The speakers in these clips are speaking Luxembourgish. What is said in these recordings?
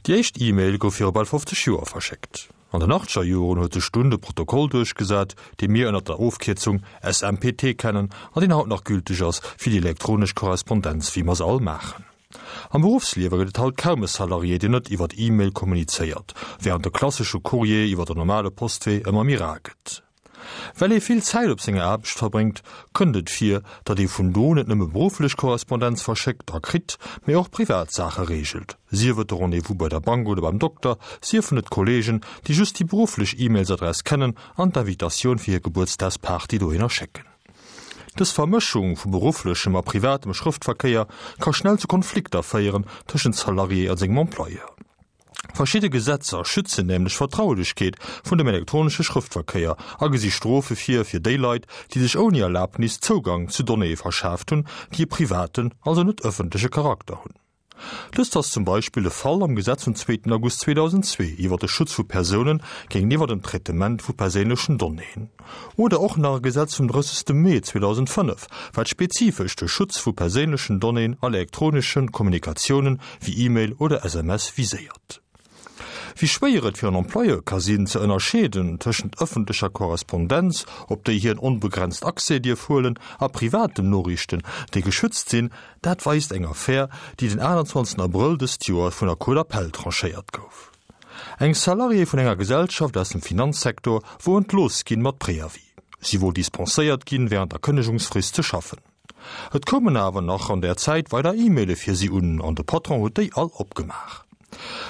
Déi éischt E-Mail gouf viru bal 50 Joer verschéckt. An den achtzeger Joren huet sech dunn de Protokoll duerchgesat, dee mir ënner der Ofkierzung SMPT kennen an deen haut nach gülteg ass fir déi elektronesch Korrespondenz wéi mer se all maachen. Am Beruffsliewe gëtt et haut kaum e Salarié, deen net iwwert E-Mail kommunizéiert, wärend de klassesche Courrier iwwer den normale Postwee ëmmer méi rar gëtt. Well ee vill Zäit op senger Aarbecht verbréngt, kënnt et vir, datt ee vun do net nëmme berufflech Korrespondenz verschéckt a kritt, mee och privat Saache reegelt, sief et de Rendez-vous bei der Bank oder beim Dokter, siefen et Kolleegen, déi just déi berufflech E-Mailsadress kennen an d'Invitatioun fir hir Gebuertsdagsparty dohinner schécken. Dës Vermëschung vu berufflechem a privatem Schrëftverkéier ka schnell zu Konflikter féieren tëschent Salarié a sengem Employeur. Verschidde Gesetzer schützen nämlech d'Vertraulechkeet vun dem elektronesche Schrëftverkéier a gesi Strofe vir fir déi Leit, déi sech ouni Erlabnis Zougang zu Donnéeë verschaaft hunn, déi e privaten, also net ëffentleche Charakter hunn. Dëst ass zum Beispill de Fall am Gesetz vum zweeten August 2002 iwwer de Schutz vu Persounen géintiwwer dem Traitement vu perséinlechen Donnéeën oder och nach e Gesetz vum 30. Mee 2005, wat spezifesch de Schutz vu perséinlechen Donnéeën an elektronesche Kommunikatiounen wéi E-Mail oder SMS viséiert. Wéi schwéier et fir en Employeur ka sinn, ze ënnerscheeden tëschent ëffentlecher Korrespondenz, op déi hien onbegrenzt Accès dierf huelen, a privaten Noriichten, déi geschützt sinn, dat weist eng Affär, déi den 28 Abrëll dëst Joer vun der Cour d'appel tranchéiert gouf. Eng Salariée vun enger Gesellschaft aus dem Finanzsektor wor entlooss ginn mat Préavis. Si wor dispenséiert ginn, wärend der Kënnegungsfrist ze schaffen. Et koumen awer nach an där Zäit weider E-Maile fir si un an de Patron huet déi all opgemaach.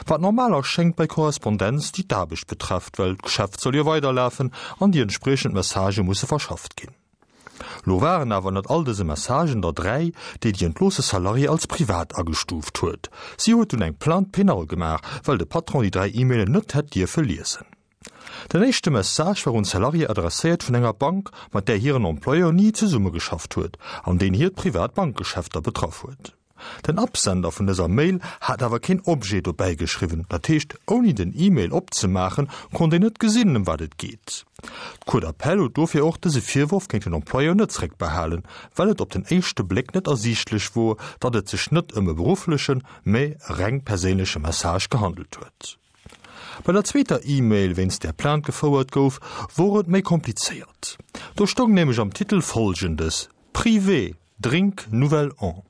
Wat normal erschéngt bei Korrespondenz, déi d'Aarbecht betrefft, well d'Geschäft soll jo weiderlafen an déi entspriechend Messagë musse verschafft ginn. Lo waren awer ënnert all dëse Messagen der 3, déi déi entloosse Salariée als privat agestuuft huet. Si huet dunn eng Plainte pénale gemaach, well de Patron déi 3 E-Mailen net hätt dierfe liesen. Den éischte Message war un d'Salariée adresséiert vun enger Bank, mat där hiren Employeur ni zesummegeschafft huet an deen hiert privat Bankgeschäfter betraff huet. Den Absender vun dëser Mail hat awer keen Objet dobäi geschriwwen, dat heescht ouni den E-Mail opzemaachen, konnt een net gesinn ëm wat et geet. D'Cour d'appel huet dofir och dëse Virworf géint den Employeur net zréckbehalen, well et op den éischte Bléck net ersiichtlech wor, datt et sech net ëm e berufflechen, mä e reng perséinleche Message gehandelt huet. Bei der zweeter E-Mail, wéinst där Plainte gefouert gouf, wor et méi komplizéiert. Do stoung nämlech am Titel Folgendes, Privé, Drink Nouvel An.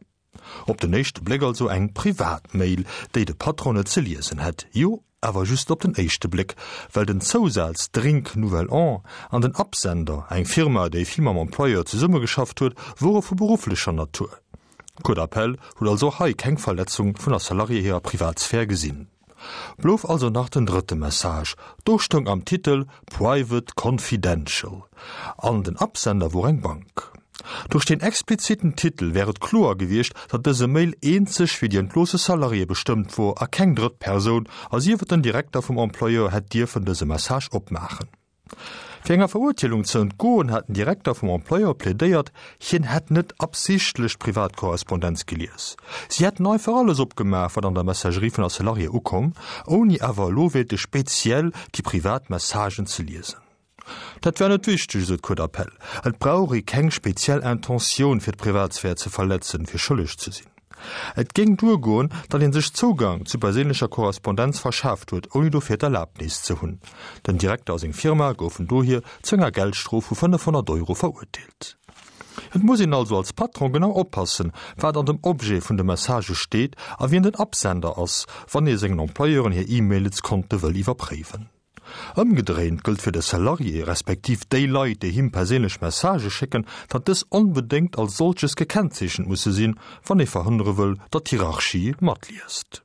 Op den éischte Bléck also eng privat Mail, déi de Patron net ze liesen hätt. Jo, awer just op den éischte Bléck, well den Zousaz Drink Nouvel An an den Absender, eng Firma, déi vill mam Employeur zesummegeschafft huet, wore vu berufflecher Natur. D'Cour d'appel huet also och hei keng Verletzung vun der Salariée hirer Privatsphär gesinn. Blouf also nach den drëtte Message, do stoung am Titel Private Confidential an den Absender wor eng Bank. Duerch deen expliziten Titel wär et kloer gewiescht, datt dëse Mail eenzeg fir déi entloosse Salariée bestëmmt wor a keng drëtt Persoun, a sief et den Direkter vum Employeur, hätt dierfen dëse Message opmaachen. Fir enger Verurteelung ze entgoen, hat den Direkter vum Employeur plädéiert, hien hätt net absichtlech d'Privatkorrespondenz gelies. Si hätten einfach alles opgemaach, wat an der Messagerie vun der Salariée ukomm, ouni awer elo wéilte speziell déi privat Messagen ze liesen. Dat wär net wichteg, esou d'Cour d'appel. Et brauch ee keng speziell Intentioun, fir d'Privatsphär ze verletzen, fir schëlleg ze sinn. Et géing duergoen, datt ee sech Zougang zu perséinlecher Korrespondenz verschaaft huet, ouni dofir d'Erlabnis ze hunn. Den Direkter a seng Firma goufen dohier zu enger Geldstrof vu 500 Euro verurteelt. Et muss een also als Patron genau oppassen, wat an dem Objet vun de Messagë steet a wien den Absender ass, wann ee sengen Employeuren hir E-Mailskonte wëll iwwerpréiwen. Ëmgedréint gëllt fir de Salarié, respektiv déi Leit, déi him perséinlech Messagë schécken, datt dës onbedéngt als solches gekennzeechent musse sinn, wann ee verhënnere wëll, datt d'Hierarchie matliest.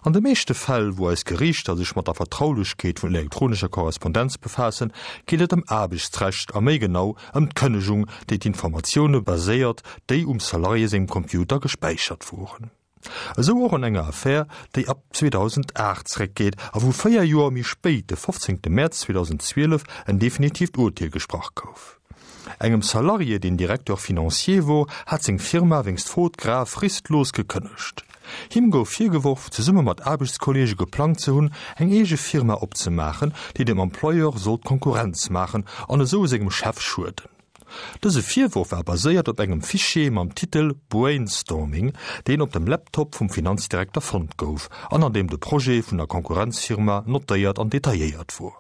An de meeschte Fäll, wou eis Geriichter sech mat der Vertraulechkeet vun elektronescher Korrespondenz befaassen, geet et ëm Aarbechtsrecht a méi genau ëm d'Kënnegung, déi d'Informatioune baséiert, déi um Salarié sengem Computer gespäichert woren. Esou och an enger Affär, déi ab 2008 zeréckgeet a wou 4 Joer méi spéit, de 15 Mäerz 2012, en definitiivt Urteel gesprach gouf. Engem Salarié, deen Directeur financier wor, hat seng Firma wéinst Faute grave fristlos gekënnegt. Him gouf virgeworf, zesumme mat Aarbechtskolleege geplangt ze hunn, eng eege Firma opzemaachen, déi dem Employeur sollt Konkurrenz maachen an esou sengem Chef schueden. Dëse Virworf war baséiert op engem Fichier mam Titel Brainstorming, deen op dem Laptop vum Finanzdirekter fonnt gouf an an deem de Projet vun der Konkurrenzfirma notéiert an detailléiert wor.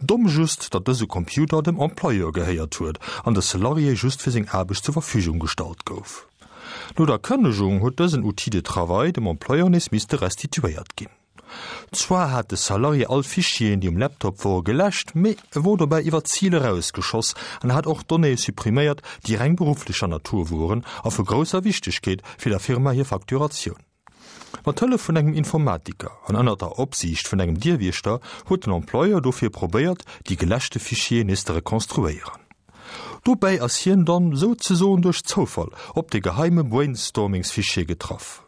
Domm just, datt dëse Computer dem Employeur gehéiert huet an de Salarié just fir seng Aarbecht zur Verfügung gestallt gouf. No der Kënnegung huet dësen Outil de travail dem Employeur nees misste restituéiert ginn. Zwar hat de Salarié all Fichieren, déi um Laptop wore geläscht, mee e wor dobäi iwwer d'Zil erausgeschoss an hat och Donnéeë suppriméiert, déi reng berufflecher Natur woren a vu grousser Wichtegkeet fir der Firma hir Facturatioun. Mat Hëllef vun engem Informatiker an ënner der Opsiicht vun engem Dierwiechter huet den Employeur dofir probéiert, déi geläschte Fichieren nees ze rekonstruéieren. Dobäi ass hien dann souzesoen duerch Zoufall op de geheime Brainstormingsfichier getraff.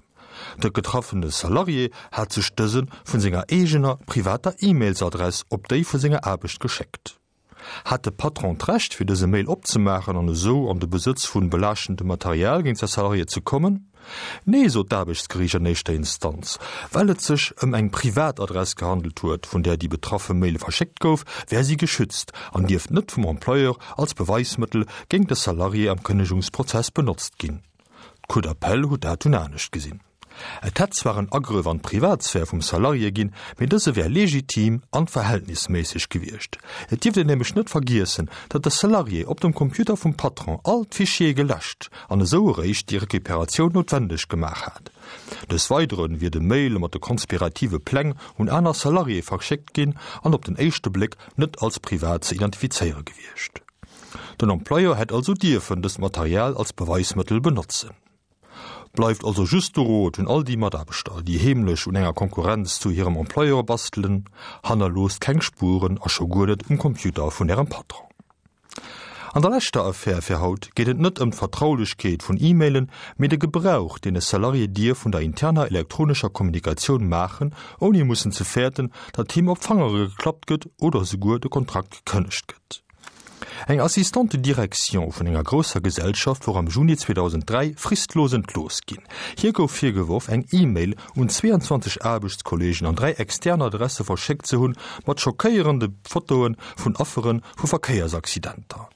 De getraffene Salarié hat sech dëse vun senger eegener privater E-Mailsadress op déi vu senger Aarbecht geschéckt. Hat de Patron d'Recht fir dëse Mail opzemaachen an esou an de Besëtz vun belaaschtendem Material géint säi Salarié ze kommen? Nee, sot d'Aarbechtsgeriicht an éischter Instanz. Well et sech ëm eng privat Adress gehandelt huet, vun där déi betraffe Mail verschéckt gouf, wär si geschützt an dierft net vum Employeur als Beweismëttel géint de Salarié am Kënnegungsprozess benotzt ginn. D'Cour d'appel huet dat dunn anescht gesinn. Et hätt zwar en Agrëff an d'Privatsphär vum Salarié ginn, mee dëse wär legitim an verhältnisméisseg gewiescht. Et dierft een nämlech net vergiessen, datt de Salarié op dem Computer vum Patron all d'Fichiere geläscht an esou eréischt déi Recuperatioun noutwendeg gemaach hat. Des Weidere wier de Mail mat de konspirative Pläng un aner Salariéë verschéckt ginn an op den éischte Bléck net als privat ze identifizéiere gewiescht. Den Employeur hätt also dierfen dëst Material als Beweismëttel benotzen. Bleift also just de Rot un all déi Mataarbechter, déi heemlech un enger Konkurrenz zu hirem Employeur bastelen, Hannerloosst keng Spueren a scho guer net um Computer vun ärem Patron. An der leschter Affär fir haut geet et net ëm d'Vertraulechkeet vun E-Mailen, mee de Gebrauch, deen e Salarié dierf vun der interner elektronescher Kommunikatioun maachen, ouni mussen ze fäerten, datt him op d'Fangere geklappt gëtt oder esouguer de Kontrakt gekënnegt gëtt. Eng Assistante de direction vun enger grousser Gesellschaft wor am Juni 2003 fristlos entlooss ginn. Hir gouf virgeworf, eng E-Mail un 22 Aarbechtskolleegen an 3 extern Adresse verschéckt ze hunn, mat schockéierende Fotoe vun Affere vu Verkéiersaccidenter.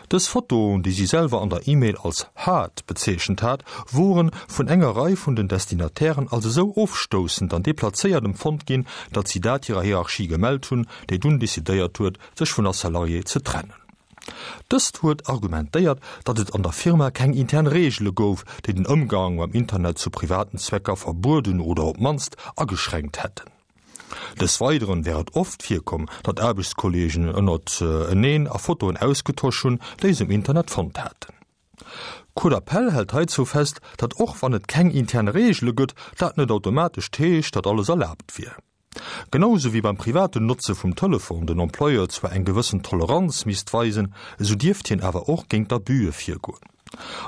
Dës Fotoen, déi si selwer an der E-Mail als haart bezeechent hat, wore vun enger Rei vun den Destinatairen als esou ofstoussend an deplazéiert empfonnt ginn, datt si dat hirer Hierarchie gemellt hunn, déi dunn decidéiert huet, sech vun der Salariée ze trennen. Dëst huet argumentéiert, datt et an der Firma keng intern Reegele gouf, déi den Ëmgang mam Internet zu privaten Zwecker verbueden oder op d'mannst ageschränkt hätten. Des Weideren wär et oft virkomm, datt Aarbechtskolleegen ënnert eneen a Fotoen ausgetosch hunn, déi se um Internet fonnt haten. D'Cour d'appel hält heizou fest, datt och wann et keng intern Reegele gëtt, dat net automatesch heescht, datt alles erlaabt wier. Genau sou wéi beim privaten Notze vum Telefon den Employeur zwar eng gewëssen Toleranz misst weisen, esou dierft hien awer och géint Abüe virgoen.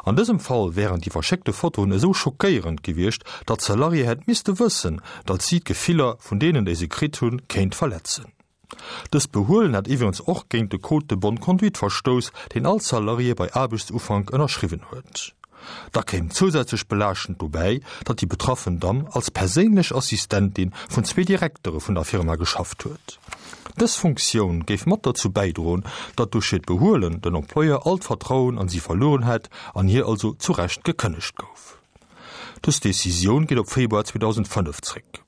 An dësem Fall wären déi verschéckte Fotoen esou schockéierend gewiescht, datt d'Salariée hätt misste wëssen, datt si d'Gefiller vun deenen, déi se kritt hunn, kéint verletzen. Dëst Behuelen hätt iwwregens och géint de Code de bonne conduite verstouss, deen all Salarié bei Aarbechtsufank ënnerschriwwen huet. Da kéim zousätzlech belaaschtend dobäi, datt déi betraffen Damm als perséinlech Assistentin vun zwee Direktere vun der Firma geschafft huet. Dës Funktioun géif mat derzou bäidroen, datt duerch hiert Behuelen den Employeur all d'Vertrauen an si verlueren hätt an hir also zu Recht gekënnegt gouf. Dës Decisioun geet op Februar 2005 zréck.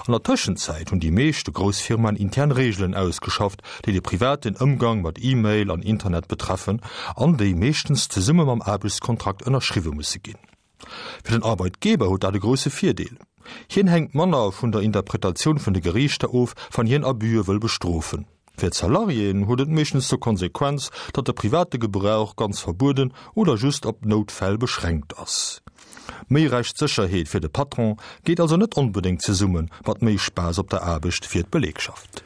An der Tëschenzäit hunn déi meeschte grouss Firmaen intern Reegelen ausgeschafft, déi de privaten Ëmgang mat E-Mail an Internet betreffen an déi meeschtens zesumme mam Aarbechtskontrakt ënnerschriwwe musse ginn. Fir den Arbeitgeber huet dat e grousse Virdeel, Hien hänkt manner vun der Interpretatioun vun de Geriichter of, wann hien Abüe wëll bestrofen. Fir d'Salariéen huet et meeschtens zur Konsequenz, datt de private Gebrauch ganz verbueden oder just op Noutfäll beschränkt ass. Méi Rechtssécherheet fir de Patron geet also net onbedéngt zesumme mat méi Spaass op der Aarbecht fir d'Belegschaft.